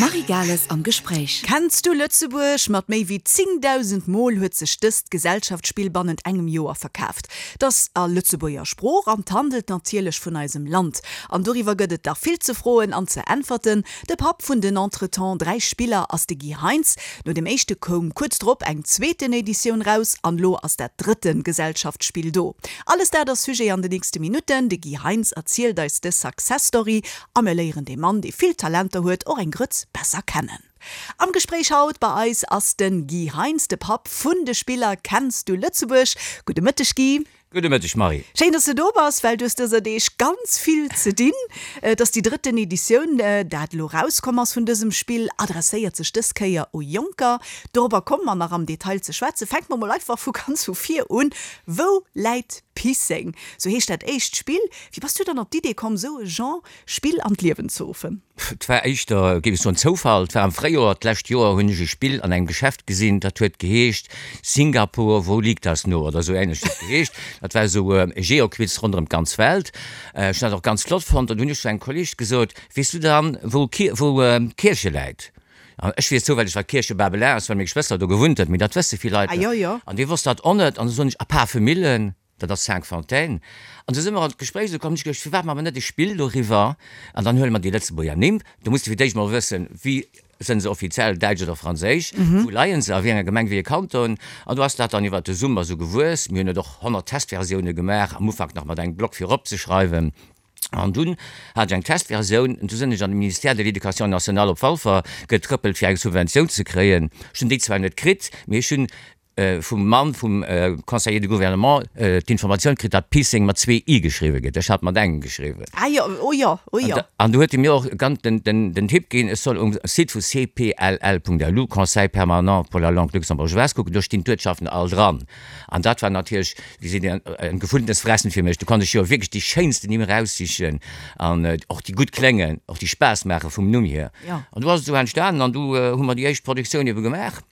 D'Marie Gales am Gespréich. Kenns du Lëtzebuerg? Mat méi wéi 10.000 Mol huet sech dëst Gesellschaftsspill bannent engem Joer verkaaft. 't ass a Lëtzebuerger Sprooch an 't handelt natierlech vun eisem Land. An doriwwer gëtt et dach vill ze froen an ze äntwerten. De Papp vun den entretemps 3 Spiller ass de Guy Heintz. No dem éischte koum kuerz drop eng zweeten Editioun raus an lo ass dat drëtte Gesellschaftsspill do. Alles dat ass Sujet an de nächste Minutten. De Guy Heintz erzielt eis dës Success Story a mir léieren dee Mann, dee vill Talenter huet, och eng Grëtz besser kennen. Am Gespréich haut bei eis ass de Guy Heintz, de Papp vun de Spiller Kenns du Lëtzebuerg? Gudde Mëtteg Guy. Gudde Mëtteg Marie. Schéin, dass de do bass, well du hues dëser Deeg ganz vill ze dinn. Et ass déi drëtten Editioun, dat elo rauskomm ass vun dësem Spill, adresséiert sech dës Kéier u Jonker. Dorobber komme mer nach am Detail ze schwätzen. Fänke mer mol einfach vu ganz vu vir un. Wou läit Pisseng? Sou heescht dat éischt Spill. Wéi bass du dann op d'Idee komm, sou e Genre Spill an d'Liewen ze ruffen? Et war éischter, géif ech soen, Zoufall. Et war am Fréijoer d'lescht Joer, hunn ech e Spill an engem Geschäft gesinn, dat huet geheescht Singapur, wo liegt das nur? oder esou ähnlech huet et geheescht. Dat war esou e Geoquiz ronderëm d'ganz Welt. Ech hunn dat och ganz flott fonnt an du hunn ech zu engem Kolleeg gesot, Weess du dann, wou wou Kierche läit? An ech weess zoufälleg, wat Kierche Babelin ass, well meng Schwëster do gewunnt huet, mee dat wësse vill Leit net. An dee wosst dat och net. An du soen ech, A Pafemillen? Dat ass Cinqfontaines. An du si mer an d'Gespréich esou komm, hu ech geduecht, firwat maache mer net e Spill doriwwer an dann huele mer déi Lëtzebuerger Nimm. Do muss de fir d'éischt mol wëssen, wéi sënn se offiziell, däitsch oder franséisch, wou leien se, a wéi enger Gemeng, wéi e Kanton. An du ass dat dann iwwert de Summer esou gewuess. Mir hunn et och 100 Testversioune gemaach, am Ufank nach mat engem Block fir eropzeschreiwen. An dunn hat ech eng Testversioun, an du sinn ech an de Ministère de l'Éducation nationale op Walfer getrëppelt, fir eng Subventioun ze kréien. Ech hunn déi zwar net kritt, mee ech hunn vum Mann vum Conseiller de gouvernement d'Informatioun kritt, datt Pisseng mat zwee i geschriwwe gëtt. Ech hat mat engem geschriwwen. Ah jo, oh jo, oh jo. An du huet e mir och ganz den, den, den Tipp ginn, ech soll um Site vu cpll.lu, Conseil permanent pour la langue luxembourgeoise, kucken, do stinn d'Uertschaften all dran. An dat war natierlech, wéi seet een, ein gefundenes Fressen fir mech. Do konnt ech jo wierklech déi schéinsten Nimm eraussichen an och déi gutt kléngen, och déi Spaass maache vum Numm hier. An du ass et esou entstanen an du hu mer déi éischt Produktioun ebe gemaach.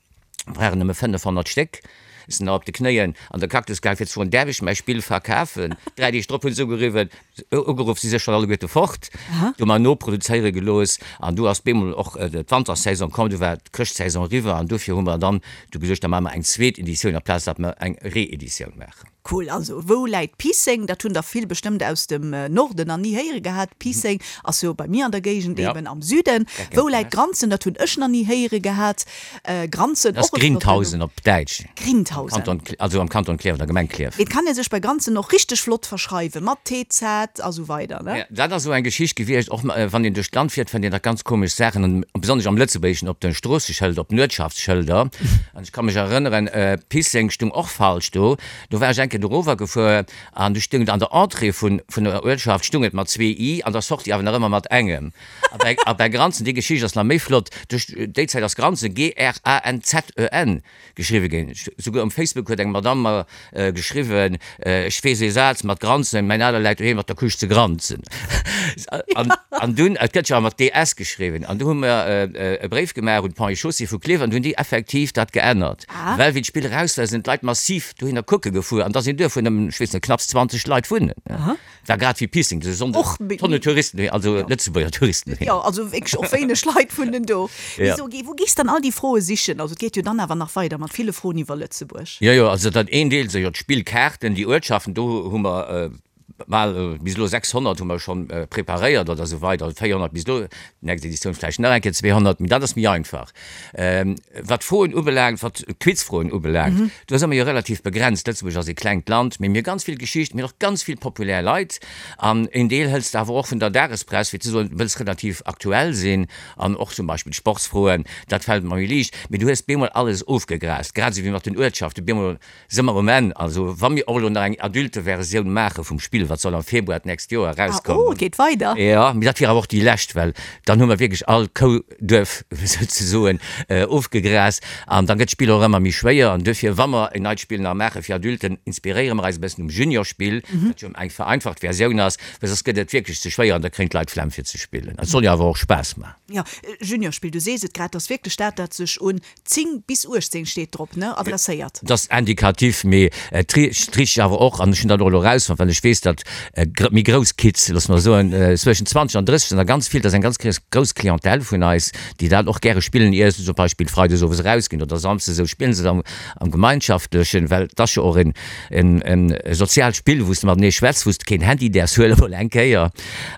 Waren nëmme 500 Stéck. Ech sinn nach op de Knéien an der Cactus gaang fir ze froen, däerf ech mäi Spill verkafen? Dräi Deeg drop hunn se ugeriwwen, ugeruff, si si schonn alleguerte fort. Du hu mer noproduzéiere gelooss an du ass bemol och d'Wantersaison komm, du war d'Chrëschtsaison eriwwer an dofir hu mer dann du geduecht, da maache mer eng zweet Editioun aplaz datt mer eng Reeditioun maachen. Cool, also wou läit Piisseng? Dat hunn der vill bestëmmt aus dem Norden nach ni héiere gehat. Piisseng ass jo bei mir an der Géigend, eben am Süden. Wou läit Granzen? Dat hunn ech nach ni héiere gehat. Granzen, och e flotten Numm. Grindhausen op Däitsch. Grindhausen. Also am Kanton Klierf, an der Gemeng Klierf. Et kann ee sech bei Granzen och richteg flott verschreiwen, mat TZ a sou weider, ne? Dat ass esou eng Geschicht gewiescht, och wann een duerch d'Land fiert, fënnt een da ganz komesch Saachen, an besonnesch am Lëtzebuergeschen op de Stroosseschëlder, op den Uertschaftsschëlder. An ech ka mech erënneren, Pisseng stung och falsch do. Do war ech eng Kéier dorower gefuer an du stung et an der Entrée vun vun der Uertschaft stung et mat zwee i, an der Sortie awer nach ëmmer mat engem. A bei a bei Granzen, déi Geschicht ass nach méi flott, duerch déi Zäit ass Granzen, G-R-A-N-Z-E-N, geschriwwe ginn. Souguer um Facebook huet eng Madamm mer geschriwwen, Ech weess ee Saz mat Granzen, mäin Aler läit doheem mat der Couche ze granzen. An, an dunn, et gëtt jo awer mat DS geschriwwen, an du hu mer e Bréif gemaach un d'Ponts et Chaussées vu Klierf an du hunn déi effektiv dat geännert. Well wéi d'Spill eraus war, sinn d'Leit massiv dohinner kucke gefuer an da sinn duerfuer nëmmen, ech weess net, knapps 20 Leit wunnen. War grad wéi Pissing, de Sonndeg, Tonne Touristen, also Lëtzebuerger Touristen. Jo, also wierklech och wéineg Leit wunnen do. Mee so, wou gees dann all déi Froe sichen? Also et geet jo dann awer nach weider mat ville Froen iwwer Lëtzebuerg. Jo, jo, also dat een Deel si jo d'Spillkaarten, déi Uertschaften, do hu mer bal bis elo 600 hu mer schonn preparéiert oder esou weider, 400 bis elo, nächst Editioun vläicht nach eng Kéier 200, mee dat ass méi einfach. Wat d'Froen ubelaangt, wat d'Quizfroen ubelaangt, do si mer jo relativ begrenzt. Lëtzebuerg ass ee klengt Land, mee mir hu ganz vill Geschicht, mir hunn och ganz vill populär Leit an een Deel hëls de awer och vun der Dagespress, fir ze soen, du wëlls relativ aktuell sinn an och zum Beispill d'Sportsfroen, dat fält mer méi liicht. Mee du hues bemol alles ofgegraast, grad esou wéi mat den Uertschaften, bemol Si mer um Enn. Also wa mir och elo nach eng Adulteversioun maache vum Spill, wat soll am Februar d'nächst Joer erauskommen. Ah, oh, et geet weider. Jo, mee dat wier awer och déi lescht, well dann hu mer wierklech all Kou, Duerf souzesoen ofgegraast an da gëtt d'Spill och ëmmer méi schwéier. An duerfir, wa mer en neit Spill nach maache fir Adulten, inspiréiere mer eis e bëssen um Juniorspill, dat jo eng vereinfacht Versioun ass, well soss gëtt et wierklech ze schwéier an da kréien d'Leit Flemm fir ze spillen. Et soll jo awer och Spaass maachen. Jo, Juniorspill, du sees et grad, ass wierklech dat, dat sech un 10 bis 18 steet drop, ne? Adresséiert. Dat ass indikativ, mee et richt awer och, an ech hunn dat och elo erausfonnt, well ech weess. weess, datt méi grouss Kids, loosse mer soen, zwëschen 20 an 30 sinn der ganz vill, dat ass eng ganz grouss Clientèle vun eis, déi dat och gäre spillen, ier se zum Beispill freides owes erausginn oder samsdes esou, spillen se am Gemeinschaftlechen, well et ass jo och en soziaalt Spill, wou s de matenee schwätz, wou s de keen Handy däerfs huelen, mol eng Kéier.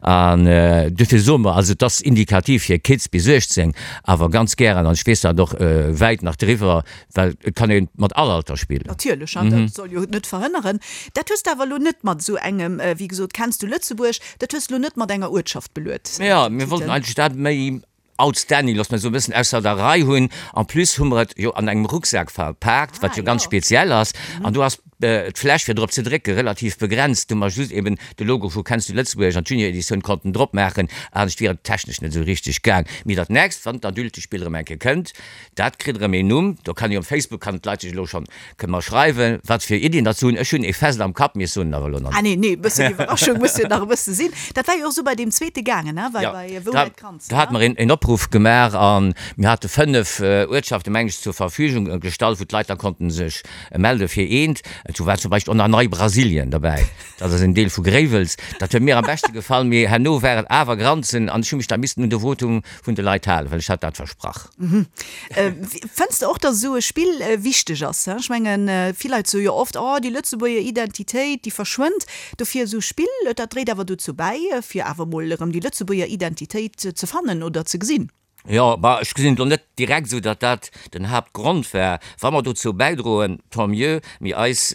An dofir soe mer, also et ass indikativ fir Kids bis 18, awer ganz gären, an ech weess dat och, wäit nach driwwer, Well et kann ee mat all Alter spillen. Natierlech, an dat soll jo net verhënneren. Dat hues de awer elo net mat esou engem, wéi gesot, Kenns du Lëtzebuerg? Dat hues de elo net mat enger Uertschaft beluet. Jo, mir wollten eigentlech dat méi outstanding, looss mer soen, e bëssen ausser der Rei hunn. En plus hu mer et jo an engem Rucksak verpaakt, wat jo ganz speziell ass. An do ass d'Fläch fir drop ze drécke relativ begrenzt. Do hu mer just eben de Logo vu Kenns du Lëtzebuerg an d'Junior-Editioun konnten drop maachen. Anescht wier et technesch net esou richteg gaang. Mee dat nächst, wann d'Adultespill erëm eng Kéier kënnt, Dat kritt erëm een Numm. Do kann ee um Facebook, kann d'Leit sech elo schonn, kënne mer schreiwen, wat fir Iddien datt se hunn. Ech hunn ee fest am Kapp, mee ech soen en awer elo nach net. Ah nee, nee, e bëssen Iwwerraschung muss jo nach e bësse sinn. Dat war jo och esou bei deem zweete gaangen, ne, bei, bei Wou läit d'Kranz, ne? Do hate mer een Opruff gemaach a mir hate 5 Uertschaften, meng ech, zur Verfügung gestallt, wou d'Leit da konnten sech melde fir eent. Do war zum Beispill och nach Nei-Brasilien derbäi, dat ass en Deel vu Gréiwels. Dat huet mir am beschte gefall, mee herno war et awer Granzen an ech hu mech da missten un de Votum vun de Leit halen, well ech hat dat versprach. Fënns de och, datt esou e Spill wichteg ass? Ech mengen, vill Leit soe jo oft, oh déi Lëtzebuerger Identitéit, déi verschwënnt. Dofir esou Spill, dat dréit awer dozou bäi, fir awer mol erëm déi Lëtzebuerger Identitéit ze fannen oder ze gesinn. Jo, bah, ech gesinn et elo net direkt esou, datt dat den Haaptgrond war. Wa mer dozou bäidroen, tant mieux, mee eis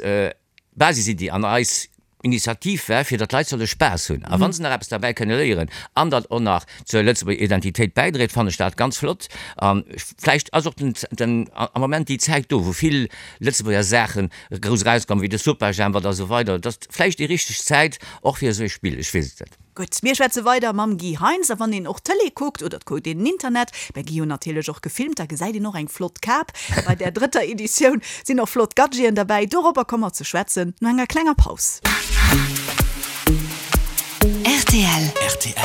Basisiddi an eis Initiativ war, fir datt d'Leit solle Spaass hunn. A wa se nach eppes derbäi kënne léieren an dat och nach zur Lëtzebuerger Identitéit bäidréit, fannen ech dat ganz flott. A vläicht ass och den, den, am Moment déi Zäit do, wou vill Lëtzebuerger Saache grouss erauskommen, wéi de Superjhemp a sou weider, et ass vläicht déi richteg Zäit och fir esou e Spill, ech weess et net. Gutt, mir schwätze weider mam Guy Heintz. A wann een och Tëlee kuckt, oder et kuckt een den Internet, mä Guy hunn natierlech och gefilmt, da gesäit een och eng flott Kap. Bei där drëtter Editioun sinn och flott Gadgeten derbäi. Dorobber komme mer ze schwätzen no enger klenger Paus. Rtl. Rtl.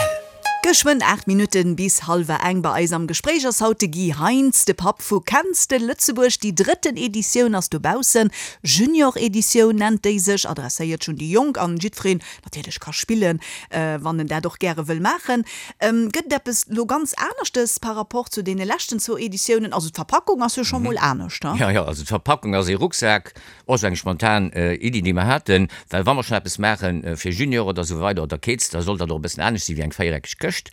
Geschwënn 8 Minutten bis hallwer eng. Bei eis am Gespréich ass haut de Guy Heintz, de Papp vu Kenns de Lëtzebuerg? Déi drëtten Editioun ass dobaussen. Junior-Editioun nennt déi sech, adresséiert schonn déi Jonk an jiddwereen natierlech ka spillen, wann en dat och gäre wëll maachen. Gëtt et eppes lo ganz aneschtes par rapport zu deene leschten zwou Editiounen? Also d'Verpackung ass jo scho mol anescht, he? Jo, jo, also d'Verpackung ass ee Rucksak, och esou eng spontan Iddi, déi mer haten, well wa mer schonn eppes maache fir Junior oder esou weider oder Kids, da soll dat och e bëssen anescht si wéi eng véiereckeg Këscht.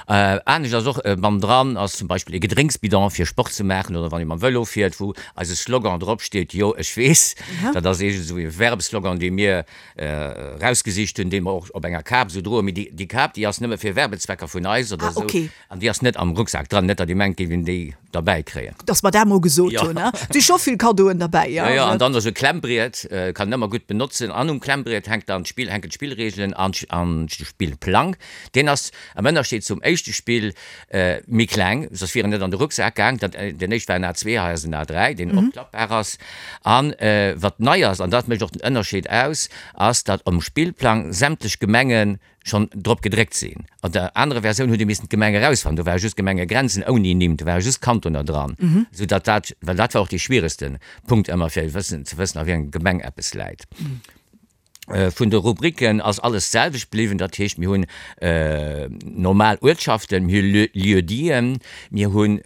Anescht ass och, bannendran ass zum Beispill ee Gedrénksbidon fir Sport ze maachen oder wann ee mam Vëlo fiert, wou eise Slogan dropsteet, Jo, ech weess. Dat ass eegent esou ee Werbeslogan, dee mir Rausgesicht hunn, déi mer och op enger Kap esou droen. Mee déi Kap, déi ass nëmme fir Werbezwecker vun eis oder esou. An déi ass net am Rucksak dran. Net, datt Dir mengt, géif een déi derbäi kréien. Datt mer dat mol gesot hunn, he. Et si scho vill Kaddoen derbäi, jo. Jo, jo. An dann esou e Klemmbriet, kann een ëmmer gutt benotzen. An um Klemmbriet hänkt dann d'Spill, hänken d'Spillreegelen an de Spillplang. Deen ass am Ënnerscheed zum éischte Spill méi kleng, soss wier en net an de Rucksak gaang. Dat, den éischt war en A2, hei ass en A3, deen opklappbar ass. An wat nei ass, an dat mécht och den Ënnerscheed aus, ass, datt um Spillplang sämtlech Gemenge schonn drop gedréckt sinn. An der anerer Versioun huet ee missen d'Gemeng erausfannen, do ware just Gemengegrenzen ouni Nimm, do ware just Kantoner dran, esou datt dat, well dat war och dee schwieregste Punkt ëmmer, fir wëssen, ze wëssen, a wéi enger Gemeng eppes läit. Vun de Rubriken ass alles d'selwecht bliwwen, dat heescht mir hunn normal Uertschaften, mir hu Lieu-diten, mir hunn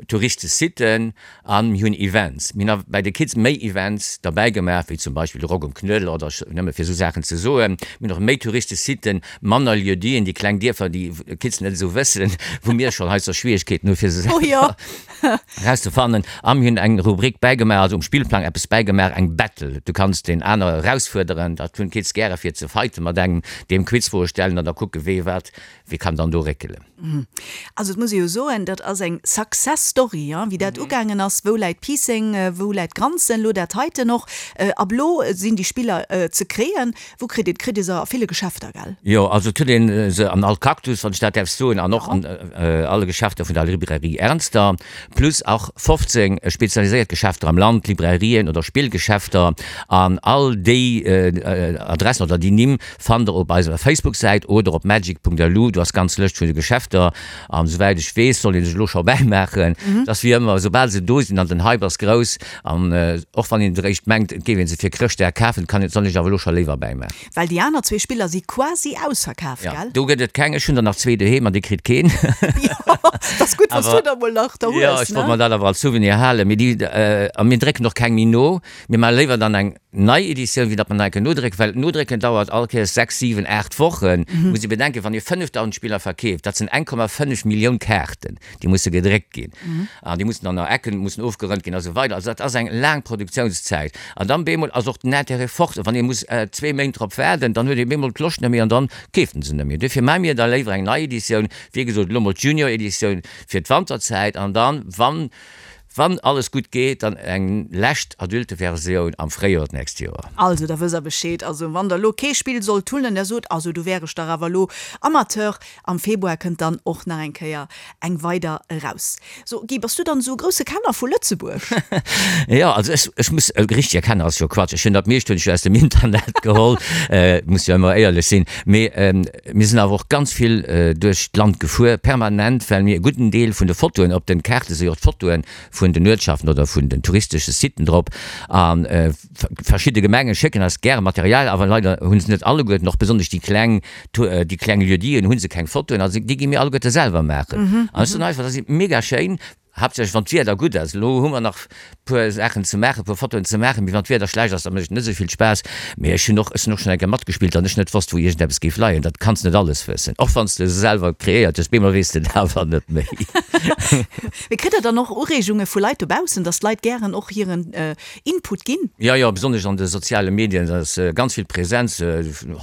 Touristesitten a mir hunn Events. Mir hunn awer bei de Kids méi Events derbäi gemaach, wéi zum Beispill de Rock um Knuedler oder nëmme fir esou Saachen ze soen. Mir hunn och méi Touristesitten, manner Lieu-diten, déi kleng Dierfer, déi d'Kids net esou wëssen, wou mir schonn heiansdo Schwierigkeeten hu fir se selwer. Erauszefannen. A mir hunn eng Rubrik bäigemaach, also um Spillplang eppes bäigemaach, eng Battle. Du kanns deen anere erausfuerderen, dat hunn d'Kids gäre fir ze fighten mat engem, deem Quizfroe stellen an da kucke wee wat, wee kann dann do réckelen. Also et muss ee jo soen, dat ass eng Success Story, wéi dat ugaangen ass. Wou läit Piisseng, wou läit Granzen, elo dat heiten och. Ab elo sinn déi Spiller ze kréien. Wou kritt een, kritt ee se a ville Geschäfter, gell? Jo, also et huet een se an all Cactus, wann ech dat däerf soen, an och an alle Geschäfter vun der Librairie Ernster, plus och 15 spezialiséiert Geschäfter am Land, Librairien oder Spillgeschäfter, an all déi. Adressen oder déi Nimm fannt der op eiser Facebook-Säit oder op magic.lu. Do ass d'ganz Lëscht vun de Geschäfter. An esouwäit ech weess, soll ee sech elo scho bäimaachen. Et ass wéi ëmmer, soubal se do sinn an den Hype ass grouss, an och wann een eréischt mengt, et géif ee se fir Chrëschtdag kafen, kann een, soll ee sech awer elo scho léiwer bäimaachen. Well déi aner zwee Spiller si quasi ausverkaf, gell? Jo, do gëtt et keng. Ech hunn der nach zwee doheem an déi kritt keen. Jo, et ass gutt, wann s du der mol nach der hues, ne? Jo, ech wollt mer dat awer als Souvenir halen. Mee déi, a mir drécken och keng méi no. Mir maache léiwer dann eng nei Editioun, wéi datt mer nach eng Kéier nodrécken, well nodrécken dauert all Kéiers 6, 7, 8 Wochen. Muss ee bedenken, wann ee 5.000 Spiller verkeeft, dat sinn 1,5 Millioun Kaarten. Déi musse gedréckt ginn an déi mussen dann nach Ecken mussen ofgerënnt ginn a sou weider. Also dat ass eng laang Produktiounszäit. An dann bemol ass och den Intérêt fort. Wann ee muss zwee Méint drop waarden, dann huet ee bemol d'Loscht net méi an dann keeft en se net méi. Duerfir maache mir da léiwer eng nei Editioun, wéi gesot elo mol d'Junior-Editioun fir d'Wanterzäit an dann, wann, wann alles gutt geet, dann eng lescht Adulte-Versioun am Fréijoer d'nächst Joer. Also da wësst der Bescheed. Also wann der elo kee Spill sollt hunn an der sot, also do wär ech dach awer elo Amateur, Am Februar kënnt dann och nach eng Kéier eng weider eraus. So Guy, bass du dann esou e grousse Kenner vu Lëtzebuerg? Jo, also ech, ech muss, e richtige Kenner ass jo Quatsch. Ech hunn dat meescht hunn ech jo aus dem Internet geholl, muss jo ëmmer éierlech sinn. Mee mir sinn awer och ganz vill duerch d'Land gefuer, permanent, well mir e gudden Deel vun de Fotoen, op den Kaarte si jo och d'Fotoe vun den Uertschaften oder vun den touristesche Siten drop an, Verschidde Gemenge schécken eis gäre Material, awer leider hu se net alleguerten, och besonnesch déi kleng, déi kleng Lieu-diten hu se keng Fotoen, also déi gi mir alleguerte selwer maachen. An ech soen einfach, dat ass mega schéin, haaptsächlech wann d'Wieder gutt ass. Elo hu mer nach puer Saachen ze maachen, puer Fotoen ze maachen, mee wann d'Wieder schlecht ass, da mécht et net esou vill Spaass. Mee ech hunn och, ech sinn och schonn eng Kéier matgespillt an ech net wosst, wou iergendeppes géif leien. Dat kanns net alles wëssen, och wann s de se selwer kreéiert hues, bemol weess de et awer net méi. Mee kritt der dann och Ureegunge vu Leit dobaussen, dass d'Leit gären och hiren Input ginn. Jo, jo, besonnesch an de soziale Medien ass ganz vill Präsenz,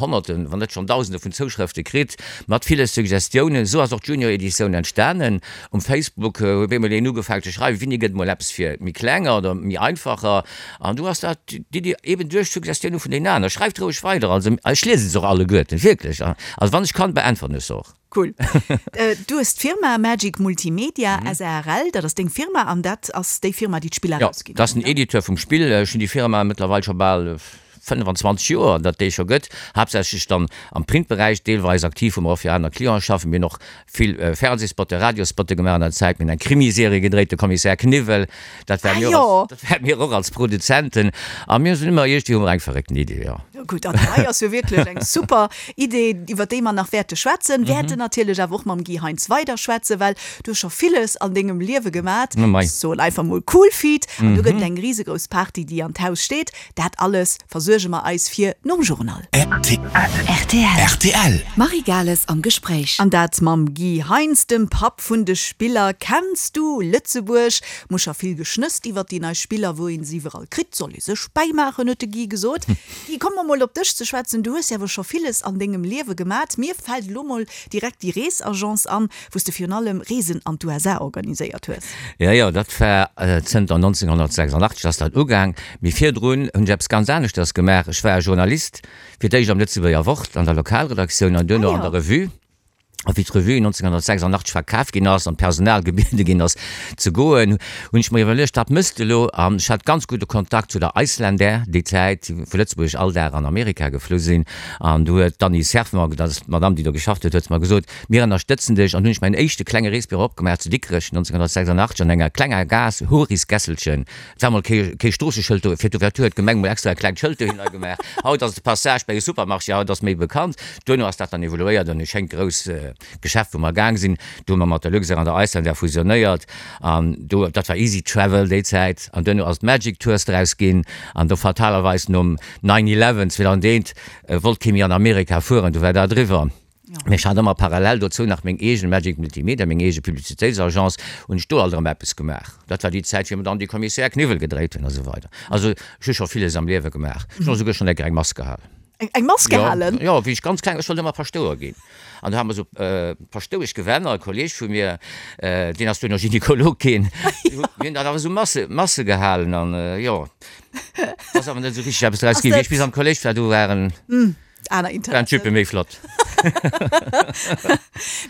Honnerten, wann net schonn Dausende vun Zouschrëfte kritt, mat ville Suggestiounen. Esou ass och d'Junior-Editioun entstanen. Um Facebook huet bemol een ugefaangen ze schreiwen, Wéini gëtt mol eppes fir méi Klenger oder méi Einfacher? An du ass dat d'Iddi eben duerch d'Suggestioune vun deenen aneren. Schreift roueg weider, also ech liese se och alleguerten, wierklech. Also wann ech kann, beäntweren ech se och. Cool. Du hues d'Firma Magic Multimedia SARL, dat ass deng Firma an dat ass déi Firma, déi d'Spiller erausginn huet, Jo, dat ass den Editeur vum Spill. Ech hunn déi Firma mëttlerweil scho bal 25 Joer, datt déi scho gëtt. Haaptsächlech dann am Printberäich, deelweis aktiv, wou mer och fir aner Clienten schaffen. Mir hunn och vill Fernsehspotte, Radiospotte gemaach an der Zäit. Mir hunn eng Krimiserie gedréit, De Kommissär Kniwwel. Dat war mir och als, dat war mir och als Produzenten. A mir sinn ëmmer, iergendwéi hu mer eng verréckten Idee, jo. Gutt, an hei ass jo wierklech eng super Idee, iwwer déi mer nach wäerte schwätzen. Wäerten natierlech awer och mam Guy Heintz weider schwätzen, well du hues scho villes an dengem Liewe gemat. Ech soen einfach mol cool feat. An do gëtt et eng risegrouss Party, déi an d'Haus steet. Dat alles versuerge mer eis fir nom Journal. Rtl. Marie Gales am Gespréich. An dat mam Guy Heintz, dem Papp vun de Spiller. Kenns du Lëtzebuerg? Muss scho vill geschnësst iwwer déi nei Spiller, wou een se iwwerall kritt. Soll ee sech bäimaachen, huet de Guy gesot. Guy, komme mer mol op dech ze schwätzen. Du hues jo awer scho villes an dengem Liewe gemat. Mir fält elo mol direkt déi Reesagence an, wou s de virun allem Reesen an d'USA organiséiert hues. Jo, jo, dat war zënter 1986 ass dat ugaang. Mee virdrun hunn ech eppes ganz aneschters gemaach. Ech war Journalist, fir d'éischt am Lëtzebuerger Wort an der Lokalredaktioun an duerno an der Revue. A wéi d'Revue 1986 verkaf ginn ass an d'Personal gebiede ginn ass ze goen, hunn ech mer iwwerluecht, wat mëss de elo? An ech hat ganz gudde Kontakt zu der Icelandair déi Zäit, déi vu Lëtzebuerg all Dag an Amerika geflu sinn. An du huet d'Annie Cerf mer, dat ass d'Madame, déi do geschafft huet, huet mer gesot, Mir ënnerstëtzen dech. An hunn ech mäin éischte klenge Reesbüro opgemaach zu Dikrech 1986 an enger klenger Gaass, Horisgässelchen. Et war mol kee Stroosseschëld do, fir d'Ouverture huet d'Gemeng mol extra e klengt Schëld dohinner gemaach. Haut ass et de Passage bei e Supermarché, haut ass méi bekannt. Duerno ass dat dann evoluéiert an e schéint grouss Geschäft, wou mer gaang sinn. Do hu mer mat der Luxair an der Icelandair fusionéiert an do, dat war Easy Travel déi Zäit. An duerno ass et Magic Tours draus ginn an do fatalerweis nom Nine Eleven 2001 wollt kee méi an Amerika fueren, du war dat eriwwer. Mee ech hat ëmmer parallel dozou nach meng eegen Magic Multimedia, meng eege Publicitéitsagence, hunn ech do alt erëm eppes gemaach. Dat war déi Zäit, wéi mer dann déi Commissaire Kniwwel gedréit hunn a sou weider. Also ech hu scho villes am Liewe gemaach. Ech hunn och souguer schonn eng Kéier eng Mass gehalen. Eng Mass gehalen? Jo, wéi ech ganz kleng, ech wollt ëmmer Paschtouer ginn. An do hate mer esou Paschtoueschgewänner, e Kolleeg vu mir, deen ass duerno Gynekolog ginn, mir hunn dann awer esou Masse, Masse gehalen an jo, ass awer net esou richteg eppes draus ginn. Wéi ech bis am Kolléisch war, do waren. Aner Waren Interessen. d'Juppe méi flott.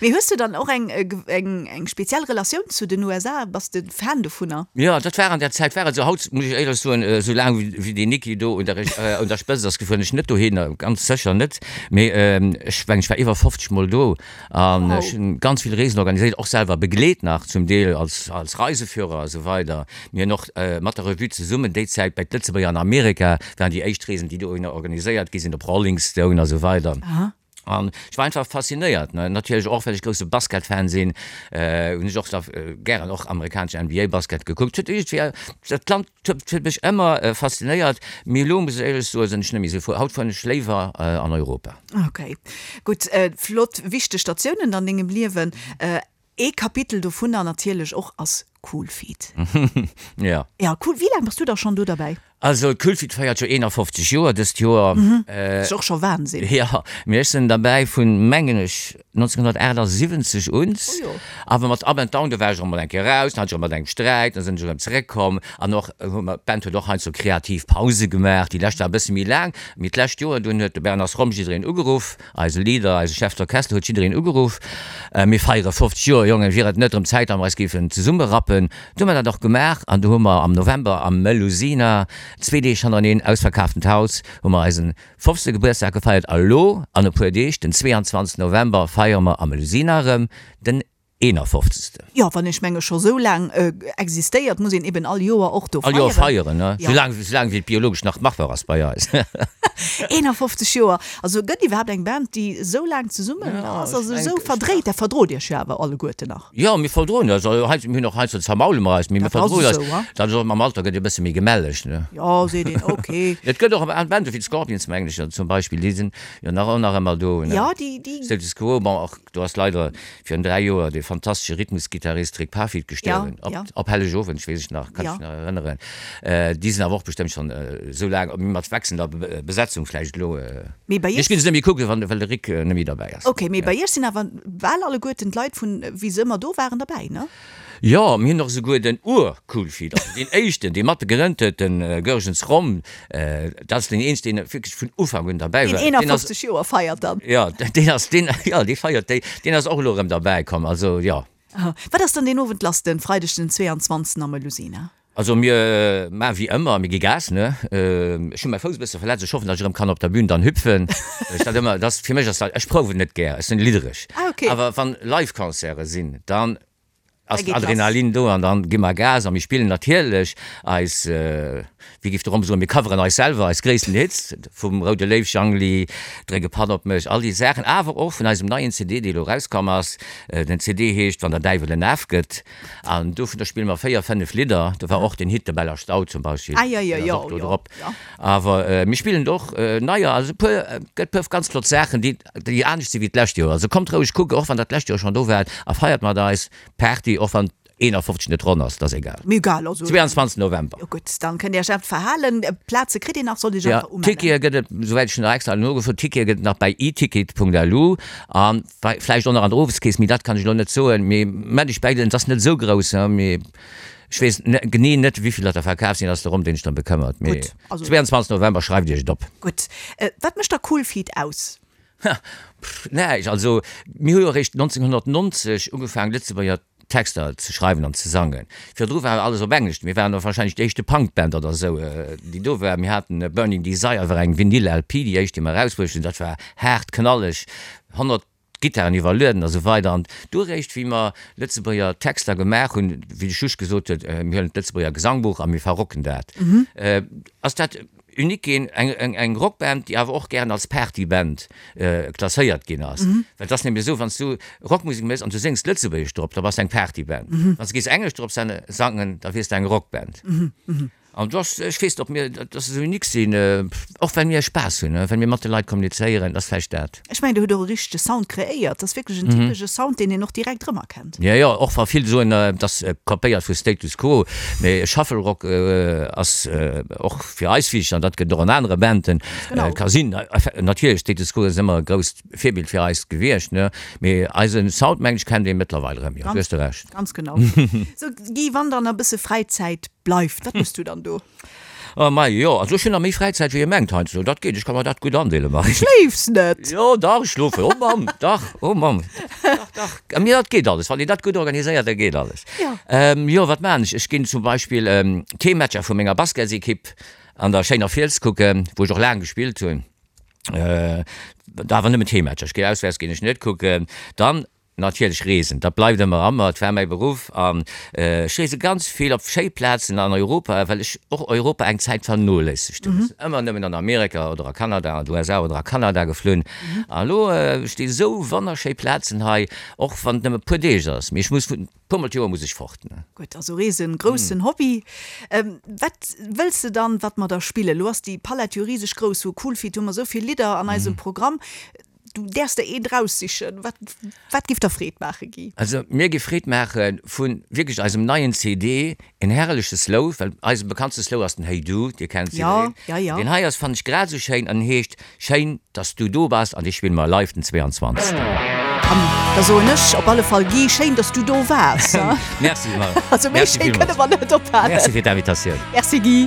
Mee hues du dann och eng, eng, eng speziell Relatioun zu den USA? Bass de Fan dovunner? Jo, dat war an der Zäit war et esou. Haut muss ech éierlech soen, esou laang wéi deen Niki do un der, un der Spëtzt ass, fueren ech net dohinner, ganz sécher net. Mee ech mengen, ech war iwwer 50 Mol do an ech hunn ganz vill Reesen organiséiert, och selwer begleet nach zum Deel als, als Reiseführer a sou weider. Mir hunn och mat der Revue zesummen déi Zäit bei d'Lëtzebuerger an Amerika waren déi éischt Reesen, déi dohinner organiséiert gi sinn, op Rolling Stone a sou weider. An ech war einfach faszinéiert, ne. Natierlech och, well ech grousse Basketfan sinn, hunn ech och da gären och amerikanesch NBA-Basket gekuckt. Huet iergendwéi, dat Land huet mech ëmmer faszinéiert, mee elo muss ech éierlech soen, sinn ech net méi esou frou. Haut fueren ech léiwer an Europa. Ok, gutt. Flott, wichteg Statiounen an dengem Liewen. Ee Kapitel dovunner natierlech och ass Coolfeet. Jo. Ja, cool. Wéi laang bass du da schonn do derbäi? Also Coolfeet feiert jo 51 Joer dëst Joer. Ass och scho Wahnsinn. Jo, mee ech sinn derbäi vun, mengen ech, 1978 un. Oh jo. Awer mat Up and Down, do war ech och mol eng Kéier raus, dann hat ech erëm mat engem Sträit, dann sinn ech erëm zeréckkomm. An och hu mer, d'Band huet och heiansdo kreativ Pause gemaach, déi lescht war e bësse méi laang, mee d'lescht Joer dunn huet de Bernard Schromm jiddereen ugeruff, Eise Leader, eise Chef d'Orchestre huet jiddereen ugeruff, Mir feiere 50 Joer, Jongen, wier et net erëm Zäit, datt mer eis géifen zesummerappen? Du hu mer dat och gemaach an du hu mer am November am Melusina, zwee Deeg hannereneen, ausverkaaftent Haus, hu mer eisen 50. Gebuertsdag gefeiert. A lo an e puer Deeg, den 22. November, feiere mer am Melusina erëm den 51. Jo, wann ech menge scho sou laang existéiert, muss een eben all Joer och do feieren. All Joer feieren, ne? Sou laang, sou laang wéi et biologesch nach machbar ass bei eis. 51 Joer! Also gëtt iwwerhaapt eng Band, déi esou laang zesummen ass? Also esou verdréit, dat verdrot Iech jo awer alleguerten nach. Jo, mir verdroen eis. Also hei, mir hunn och heiansdo zermaule mer eis, mee mir verdroen eis. Dat ass och, mam Alter gëtt ee bësse méi gemelleg, ne? Jo, seet een, ok. Et gëtt och Bande wéi d'Scorpions, mengen ech, zum Beispill, déi sinn jo nach, och nach ëmmer do, ne? Jo, déi, déi. Status Quo, bon, och Do ass leider virun 3 Joer de fantastesche Rhythmusgittarist Rick Parfitt gestuerwen, Ja, ja. op Hellegowend, ech weess ech nach, kann Ja. ech nach erënneren. Déi sinn awer och bestëmmt schonn esou laang, mee mat wechselnder Besetzung vläicht elo. Mee bei Ech iech. ginn se net méi kucken, wann, well de Rick net méi derbäi ass. Ok, mee bei iech sinn awer bal alleguerten d'Leit vun wéi se ëmmer do waren derbäi, ne? Jo, mir hunn och esouguer den Ur-Coolfeet, also deen éischten, dee mat gegrënnt huet, de Goergens Rom, dat ass deen eenzegen, deen wierklech vun Ufank un derbäi war. Deen 51 Joer feiert dann. Jo, deen ass, deen, jo, dee feiert déi, deen ass och elo erëm derbäi komm, also jo. Wat ass dann deen Owend lass, den Freideg den 22 am Melusina? Also mir maachen wéi ëmmer, mir gi Gas, ne? Ech hunn mäi Fouss e bësse verletzt, ech hoffen, datt ech erëm kann op der Bühn dann hüpfen. Ech dat ëmmer, dat ass, fir mech ass dat, ech prouwen net gär, ech sinn liddereg. Ah okay. Awer wann Live-Concerte sinn, dann ass Da geet lass. Adrenalin do an dann gi mer Gas a mir spillen natierlech eis, wéi géif de Rom soen, mir coveren eis selwer, eis gréissten Hits, vum Roude Léiw, Jangli, Dréck e Patt op mech, all déi Saachen, awer och vun eisem neien CD, dee elo erauskomm ass. Den CD heescht Wann der Däiwel en Af gëtt. An dovunner spille mer 4, 5 Lidder. Do war och den Hit De Beller Stau zum Beispill, Ah, jo, jo, deen ass jo, och do jo, drop. jo. Awer mir spillen och neier, also e puer, gëtt puer ganz flott Saachen, déi, déi anescht si wéi d'lescht Joer. Also kommt roueg kucken, och wann der d'lescht Joer schonn do waart, a feiert mat eis Party, och wann 51 net ronn ass, dat ass egal. Mee egal, also. 22 November. Jo gutt, dann kënnt Dir Iech awer verhalen. Plaze kritt Dir nach, sollt Iech Ja, einfach umellen. Tickete gëtt et, souwäit ech nach extra nogefrot, Tickete gëtt et nach bei eticket.lu an Vläicht och nach an der Oweskeess, mee dat kann ech elo net soen. Mee mä ech bäigelen, et ass net esou grouss, mee ech weess genee net, wéi vill der der verkaf sinn, ass de Rom, deen sech drëm bekëmmert. Mee Gutt, also. 22 November, schreift Iech et op. Gutt. Wat mécht da Coolfeet aus? Ha, pff, näischt. Also mir hu jo eréischt 1990 ugefaangen, Lëtzebuerger Texter ze schreiwen an ze sangen. Virdru war alles op Englesch. Mir waren och wahrscheinlech déi éischte Punkband oder esou, déi do war. Mir haten Burning Desire war eng Vinyl-LP, déi éischt, déi mer erausbruecht hunn. Dat war haart, knalleg, 100 Gittaren iwwerlueden a sou weider. An du eréischt, wéi mer Lëtzebuerger Texter gemaach hunn, wéi de Schusch gesot huet, mir huelen d'Lëtzebuerger Gesangbuch a mir verrocken dat, ass dat unique ginn, eng Rockband, déi awer och gären als Partyband klasséiert ginn ass. Well et ass nämlech esou, wann s du Rockmusek méchs an du séngs Lëtzebuergesch drop, da bass de eng Partyband. Wann s du géifs Englesch drop sangen, da wiers de eng Rockband. An do ass, ech weess net, ob mir, dass se esou unique sinn, och well mir Spaass hunn, well mir mat de Leit kommunizéieren, ass vläicht dat. Ech mengen, Dir hutt och e richtege Sound kreéiert. Dat ass wierklech en typesche Sound, deen een och direkt erëmerkennt. Jo, jo, och wa vill soen, et ass kopéiert vu Status Quo, mee Shuffle Rock ass och fir eis wichteg an dat gëtt och an anere Banden. Genau. Ka sinn, natierlech, Status Quo ass ëmmer e grousst Virbild fir eis gewiescht, ne, mee eise Sound, mengen ech, kennt ee mëttlerweil erëm, jo, do hues de Recht. Ganz genau. Sou, Guy, wann dann e bësse Fräizäit bleift, wat méchs du dann do? Oh mei, jo, also ech hunn nach méi Fräizäit wéi ee mengt heiansdo, dat geet, ech ka mer dat gutt andeelen, Marie. Schléifs net? Jo, dach, ech schlofen, oh Mamm, dach, oh Mamm, dach, dach, mir dat geet alles, wann een dat gutt organiséiert, da geet alles. Jo. Jo, wat maachen ech? Ech ginn zum Beispill d'Heemmatcher vu menger Basketsekipp an der schéiner Fiels kucken, wou ech och laang gespillt hunn, awer nëmmen d'Heemmatcher, ech ginn auswäerts ginn ech net kucken. Dann Natierlech reesen, dat bleift ëmmer a mer, et war mäi Beruff an ech reese ganz vill op schéi Plazen an Europa, well ech och Europa eng Zäit vernoléissegt hunn. Ech sinn ëmmer nëmmen an Amerika oder a Kanada, an d'USA oder a Kanada geflunn an elo sti sou wonnerschéi Plazen hei, och wann et nëmme e puer Deeg ass, mee ech muss e puer mol d'Joer muss ech fort. Gutt, also Reesen, groussen Hobby. Wat wëlls de dann, wat mer da spillen? Elo ass déi Palett jo riseg grouss, vu Cool Feet hu mer esou vill Lidder an eisem Programm. Du däerfs der eent raussichen. Wat, wat giff der Freed maachen, Guy? Also mir giff Freed maache vu wierklech eisem neien CD, en herrleche Slow, well eise bekanntste Slow ass den Hey Du, Dir kennt se Ja, ja, ja. Deen hei ass, fannen ech, grad esou schéin an heescht Schéin, dass du do bass an dee spille mer live den 22. An da soen ech op alle Fall, Guy, schéin, dass du do waars. Merci, Marie. Also méi Merci schéi villmools. kënne mer net ophalen. Merci fir d'Invitatioun. Merci, Guy.